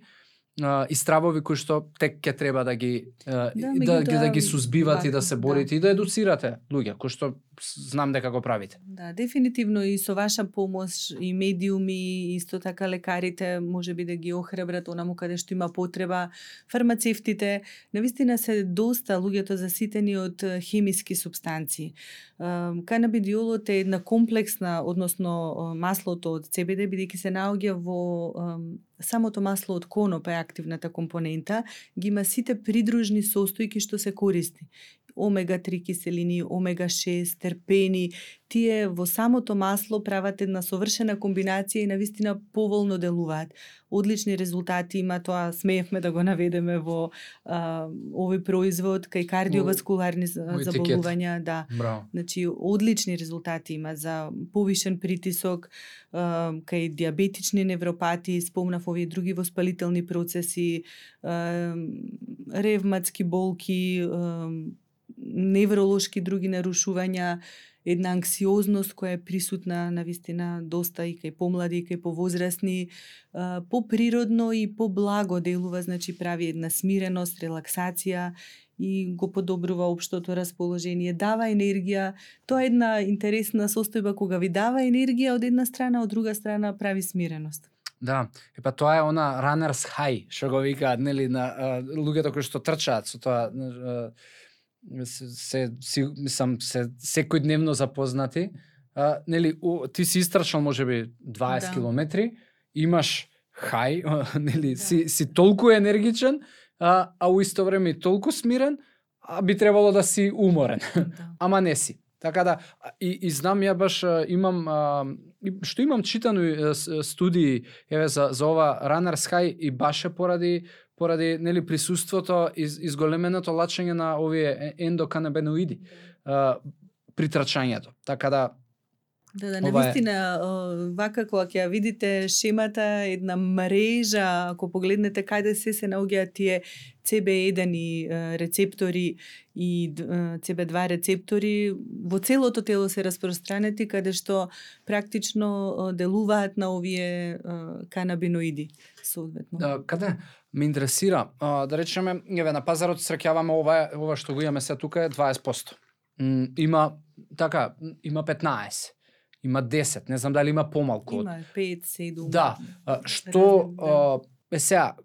и стравови кои што тек ќе треба да ги да ги сузбивате и да се борите и да едуцирате луѓе, кои што знам дека го правите. Да, дефинитивно и со ваша помош и медиуми, исто така лекарите можеби да ги охрабрат онаму каде што има потреба, фармацевтите, навистина се доста луѓето заситени од хемиски супстанции. Канабидиолот е една комплексна, односно маслото од CBD, бидејќи се наоѓа во самото масло од коноп е активната компонента, ги има сите придружни состојки што се користи. Омега-3 киселини, омега-6, терпени, тие во самото масло прават една совршена комбинација и навистина поволно делуваат. Одлични резултати има, тоа смеевме да го наведеме во овој производ кај кардиоваскуларни заболувања, да. Браво. Значи одлични резултати има за повишен притисок, кај диабетични невропати, спомнав овие други воспалителни процеси, ревматски болки, невролошки други нарушувања, една анксиозност која е присутна навистина доста и кај помлади и кај повозрасни, поприродно и поблаго делува, значи прави една смиреност, релаксација и го подобрува општото расположение, дава енергија. Тоа е една интересна состојба кога ви дава енергија од една страна, од друга страна прави смиреност. Да, епа тоа е она runners high, што го викаат, нели, на луѓето кои што трчаат со тоа, мислам, се секојдневно запознати. Нели, ти си истрчал можеби 20 километри, имаш хај, нели, си толку енергичен, а у исто време и толку смирен, а би требало да си уморен. Ама не си. Така да, и знам, ја баш имам, што имам читано студии за ова runners high и баш е поради нели присуството изголеменото лачење на овие ендоканабиноиди при трчањето. Така да Да, навистина, вака кога ќе видите шемата, една мрежа, ако погледнете каде се наоѓаат тие CB1 рецептори и CB2 рецептори, во целото тело се распространети, каде што практично делуваат на овие канабиноиди соодветно. Каде ме интересира, да речеме, еве на пазарот среќаваме ова што го имаме се тука е 20%. Има 15. Има 10, не знам дали има помалку. Има 5, 7. Да, што сега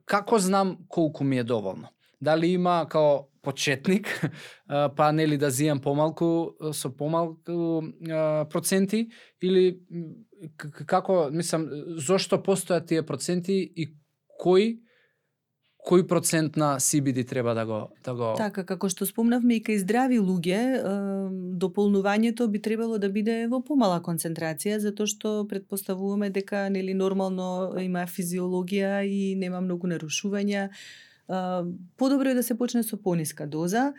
како знам колку ми е доволно? Дали има као почетник, па нели да зијам помалку со помалку проценти, или како, мислам, зошто постојат тие проценти и кој процент на CBD треба да го... Така, како што спомнавме и кај здрави луѓе, дополнувањето би требало да биде во помала концентрација, затоа што претпоставуваме дека нели нормално има физиологија и нема многу нарушувања. Подобро е да се почне со пониска доза.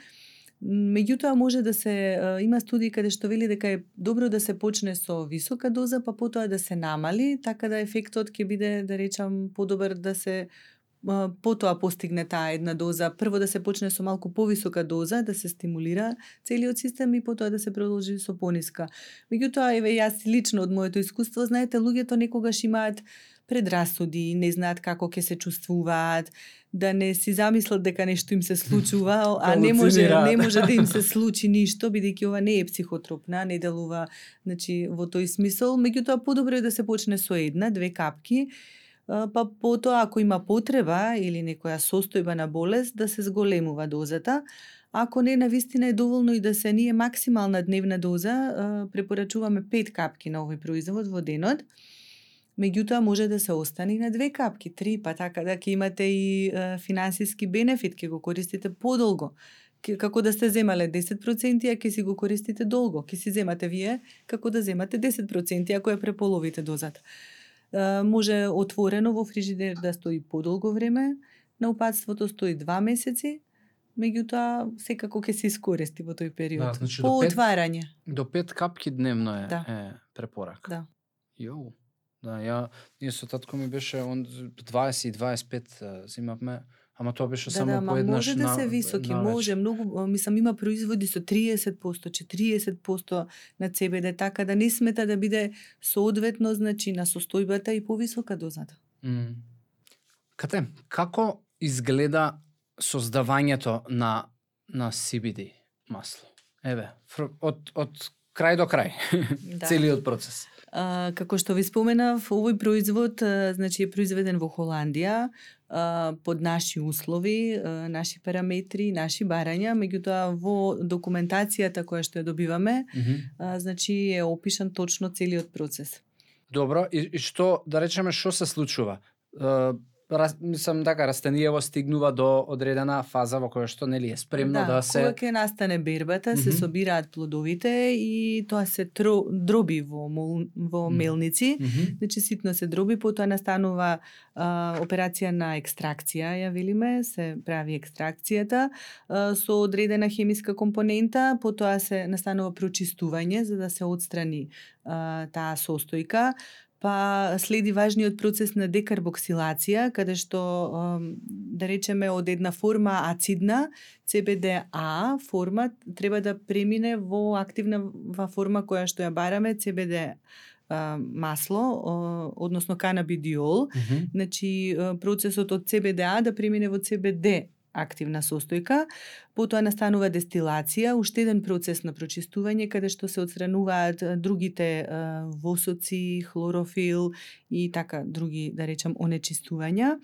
Меѓутоа може да се има студии каде што вели дека е добро да се почне со висока доза, па потоа да се намали, така да ефектот ќе биде, да речам, подобар да се потоа постигне таа една доза. Прво да се почне со малку повисока доза, да се стимулира целиот систем и потоа да се продолжи со пониска. Меѓутоа, еве јас лично од моето искуство, знаете, луѓето некогаш имаат предрасуди, не знаат како ќе се чувствуваат, да не си замислат дека нешто им се случува, а не може да им се случи ништо, бидејќи ова не е психотропна, не делува, значи, во тој смисол. Меѓутоа, подобро е да се почне со 1-2 капки, па потоа ако има потреба или некоја состојба на болест, да се зголемува дозата. Ако не, навистина е доволно и да се ние максимална дневна доза, препорачуваме 5 капки на овој производ во денот. Меѓутоа може да се остане на 2 капки, 3, па така да ќе имате и финансиски бенефит, ќе го користите подолго. Како да сте земале 10%, а ќе си го користите долго. Ќе си земате вие како да земате 10%, ако ја преполовите дозата. Може отворено во фрижидер да стои подолго време, на упатството стои 2 месеци, меѓутоа секако ќе се искористи во тој период. Да, значи по отварање. До 5 капки дневно е, Да. е препорака. Да. Јоу. Да, ние со татко ми беше 20 и 25 зимавме, ама тоа беше само по еднаш. Може да се високи, може многу, мислам има производи со 30%, 40% на CBD, така да не смета да биде соодветно, значи на состојбата и повисока дозата. Кате, како изгледа создавањето на CBD масло? Еве, од крај до крај, Да. целиот процес. Како што ви споменав, овој производ значи е произведен во Холандија под наши услови, наши параметри, наши барања, меѓутоа во документацијата која што ја добиваме, значи е опишан точно целиот процес. Добро, и што, да речеме, што се случува? Мислам така, растениево стигнува до одредена фаза во која што нели е спремно да се... кога ќе настане бербата, се собираат плодовите и тоа се дроби во мелници, значи ситно се дроби, потоа настанува операција на екстракција, ја велиме, се прави екстракцијата со одредена хемиска компонента, потоа се настанува прочистување за да се отстрани таа состојка. Па следи важниот процес на декарбоксилација, каде што, да речеме, од една форма ацидна, CBDA форма, треба да премине во активна форма која што ја бараме, CBD масло, односно канабидиол. Значи, процесот од CBDA да премине во CBD активна состојка, потоа настанува дестилација, уште еден процес на прочистување каде што се отстрануваат другите восоци, хлорофил и така други, да речам, онечистувања.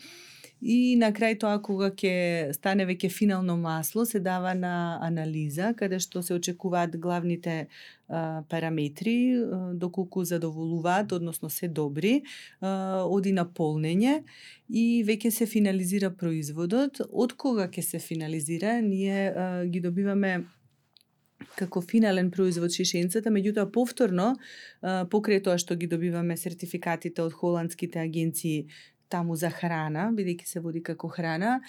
И на крај тоа, кога ќе стане веќе финално масло, се дава на анализа, каде што се очекуваат главните параметри, доколку задоволуваат, односно се добри, оди на полнење и веќе се финализира производот. Од кога ќе се финализира, ние ги добиваме како финален производ шишенцата, меѓутоа повторно, покрај тоа што ги добиваме сертификатите од холандските агенции таму за храна, бидејќи се води како храна,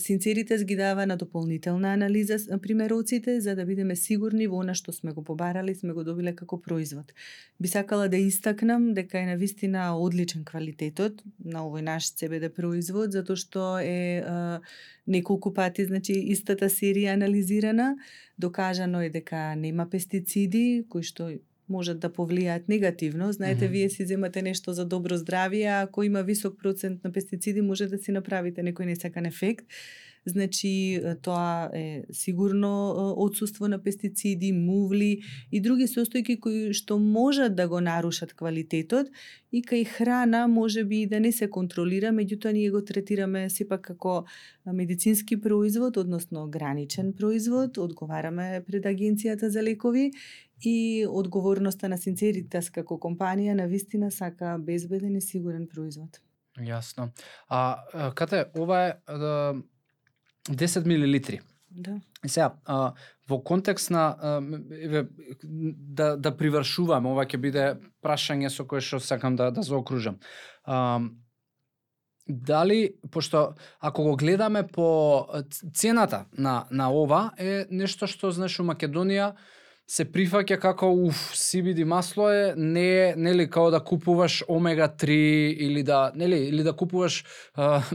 Синцеритес ги дава на дополнителна анализа примероците, за да бидеме сигурни во она што сме го побарали, сме го добиле како производ. Би сакала да истакнам дека е навистина одличен квалитетот на овој наш CBD производ, затоа што е неколку пати, значи, истата серија анализирана, докажано е дека нема пестициди, кои што можат да повлијаат негативно. Знаете, вие си земате нешто за добро здравје, а ако има висок процент на пестициди, може да си направите некој несакан ефект. Значи, тоа е сигурно отсуство на пестициди, мувли и други состојки кои што можат да го нарушат квалитетот и кај храна може би да не се контролира, меѓутоа ние го третираме сепак како медицински производ, односно граничен производ, одговараме пред Агенцијата за лекови и одговорноста на Синцеритес како компанија навистина сака безбеден и сигурен производ. Јасно. Кате, ова е 10 милилитри. Да. И сега, во контекст на да привршувам, ова ќе биде прашање со кое што сакам да заокружам. Дали, пошто ако го гледаме по цената на ова е нешто што, знаеш, у Македонија се прифаќа како CBD масло е, не е, нели, као да купуваш омега 3 или да купуваш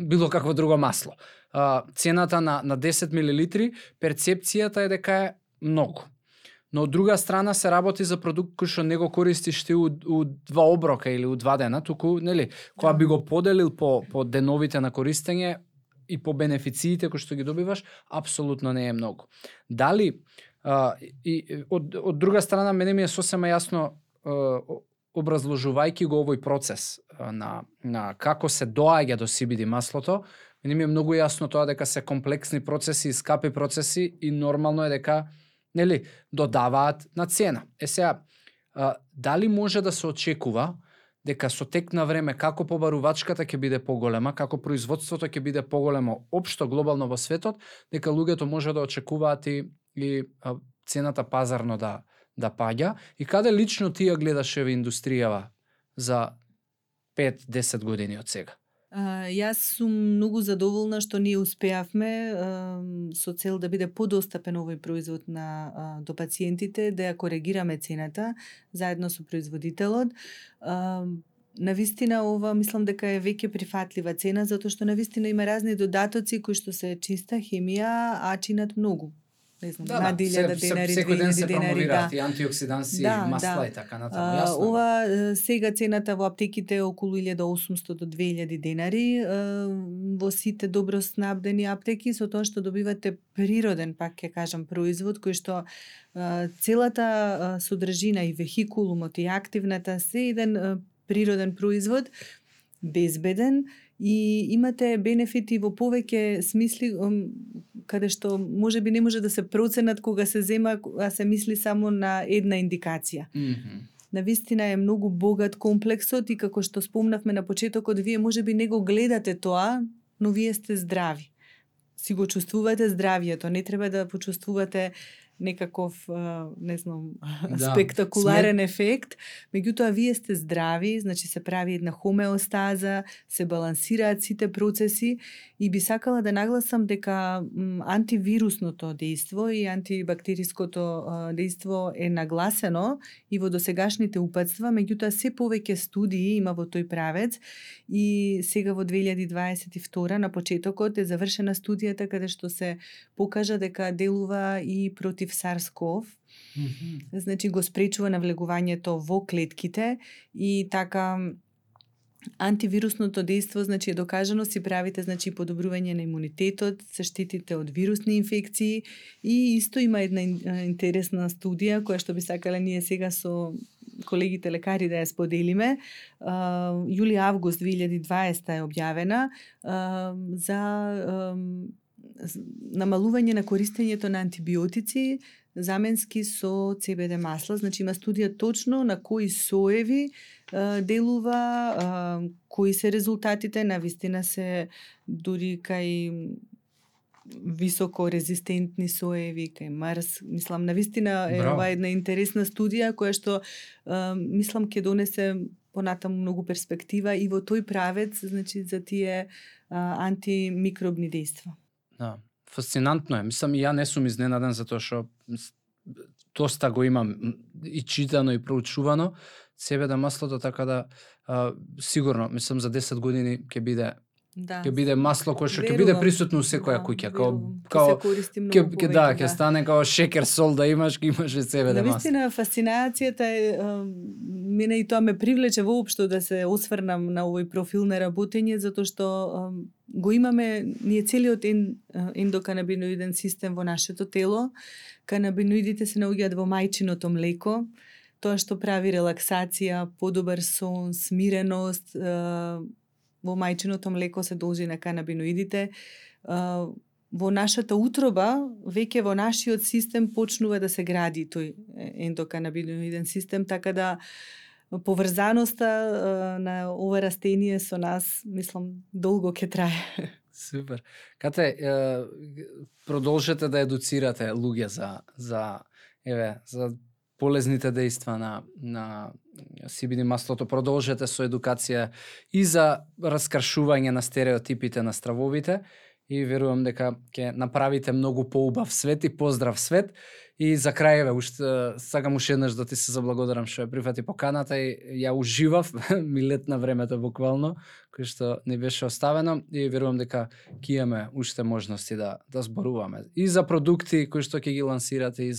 било какво друго масло. Цената на 10 милилитри, перцепцијата е дека е многу. Но од друга страна се работи за продукт кој што не го користиш ти у 2 оброка или у 2 дена, туку, нели, кога би го поделил по деновите на користење и по бенефициите кои што ги добиваш, апсолутно не е многу. Дали и од друга страна мене ми е сосема јасно, образложувајќи го овој процес на како се доаѓа до CBD маслото, мене ми е многу јасно тоа дека се комплексни процеси и скапи процеси и нормално е дека, нели, додаваат на цена. Сега, дали може да се очекува дека со тек на време како побарувачката ќе биде поголема, како производството ќе биде поголемо општо глобално во светот, дека луѓето може да очекуваат и цената пазарно да паѓа, и каде лично ти ја гледаш еве индустријава за 5-10 години од сега? Јас сум многу задоволна што ние успеавме со цел да биде подостапен овој производ до пациентите, да ја коригираме цената заедно со производителот. Навистина ова мислам дека е веќе прифатлива цена, затоа што навистина има разни додатоци кои што се чиста хемија, а чинат многу. не знам, над 1000 денари, 2000 ден се денари, промовираат и антиоксиданси, масла и така натаму, јасно. Ова сега цената во аптеките е околу 1800 до 2000 денари, во сите добро снабдени аптеки, со тоа што добивате природен, пак ќе кажам, производ кој што целата содржина и вехикулумот и активната се еден природен производ, безбеден, и имате бенефити во повеќе смисли, каде што можеби не може да се проценат кога се зема, а се мисли само на една индикација. Навистина е многу богат комплексот и како што спомнавме на почетокот, вие можеби не го гледате тоа, но вие сте здрави. Си го чувствувате здравието, не треба да почувствувате некаков, не знам, спектакуларен ефект, меѓутоа вие сте здрави, значи се прави една хомеостаза, се балансираат сите процеси и би сакала да нагласам дека антивирусното дејство и антибактериското дејство е нагласено и во досегашните упатства, меѓутоа се повеќе студии има во тој правец и сега во 2022 на почетокот е завршена студијата каде што се покажа дека делува и против SARS-CoV, значи го спречува навлегувањето во клетките и така антивирусното дејство, значи е докажано, си правите значи подобрување на имунитетот, се штитите од вирусни инфекции и исто има една интересна студија која што би сакале ние сега со колегите лекари да ја споделиме. Јули-август 2020 е објавена за намалување на користењето на антибиотици заменски со CBD масла. Значи има студија точно на кои соеви делува, кои се резултатите, навистина се дури кај високо резистентни соеви, кај Марс. Мислам, навистина е ова една интересна студија која што мислам ќе донесе понатаму многу перспектива и во тој правец, значи за тие антимикробни дејства. Да, фасцинантно е. Мислам, и ја не сум изненаден затоа што доста го имам и читано и проучувано CBD маслото, така да сигурно, мислам за 10 години ќе биде ќе биде масло кое што ќе биде присутно у секоја куќа, као ќе стане као шекер сол да имаш CBD масло. Навистина фасцинацијата е мене и тоа ме привлече воопшто да се осврнам на овој профил на работење, затоа што го имаме ние целиот ендоканабиноиден систем во нашето тело. Канабиноидите се наоѓаат во мајчиното млеко, тоа што прави релаксација, подобар сон, смиреност, во мајчиното млеко се должи на канабиноидите. Во нашата утроба, веќе во нашиот систем почнува да се гради тој ендоканабиноиден систем, така да поврзаноста на ова растение со нас, мислам, долго ќе трае. Супер. Кате, продолжете да едуцирате луѓе за полезните дејства на CBD маслото, продолжете со едукација и за раскршување на стереотипите на стравовите и верувам дека ќе направите многу поубав свет и поздрав свет. И за крај, уште сакам уште еднаш да ти се заблагодарам што ја прифати поканата и ја уживав, ми летна времето буквално, кој што не беше оставено и верувам дека ќе имаме уште можности да зборуваме и за продукти кои што ќе ги лансирате и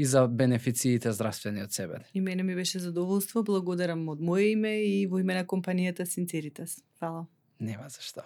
за бенефициите здравствени од CBD. И мене ми беше задоволство, благодарам од моје име и во име на компанијата Sinceritas. Фала. Нема за што.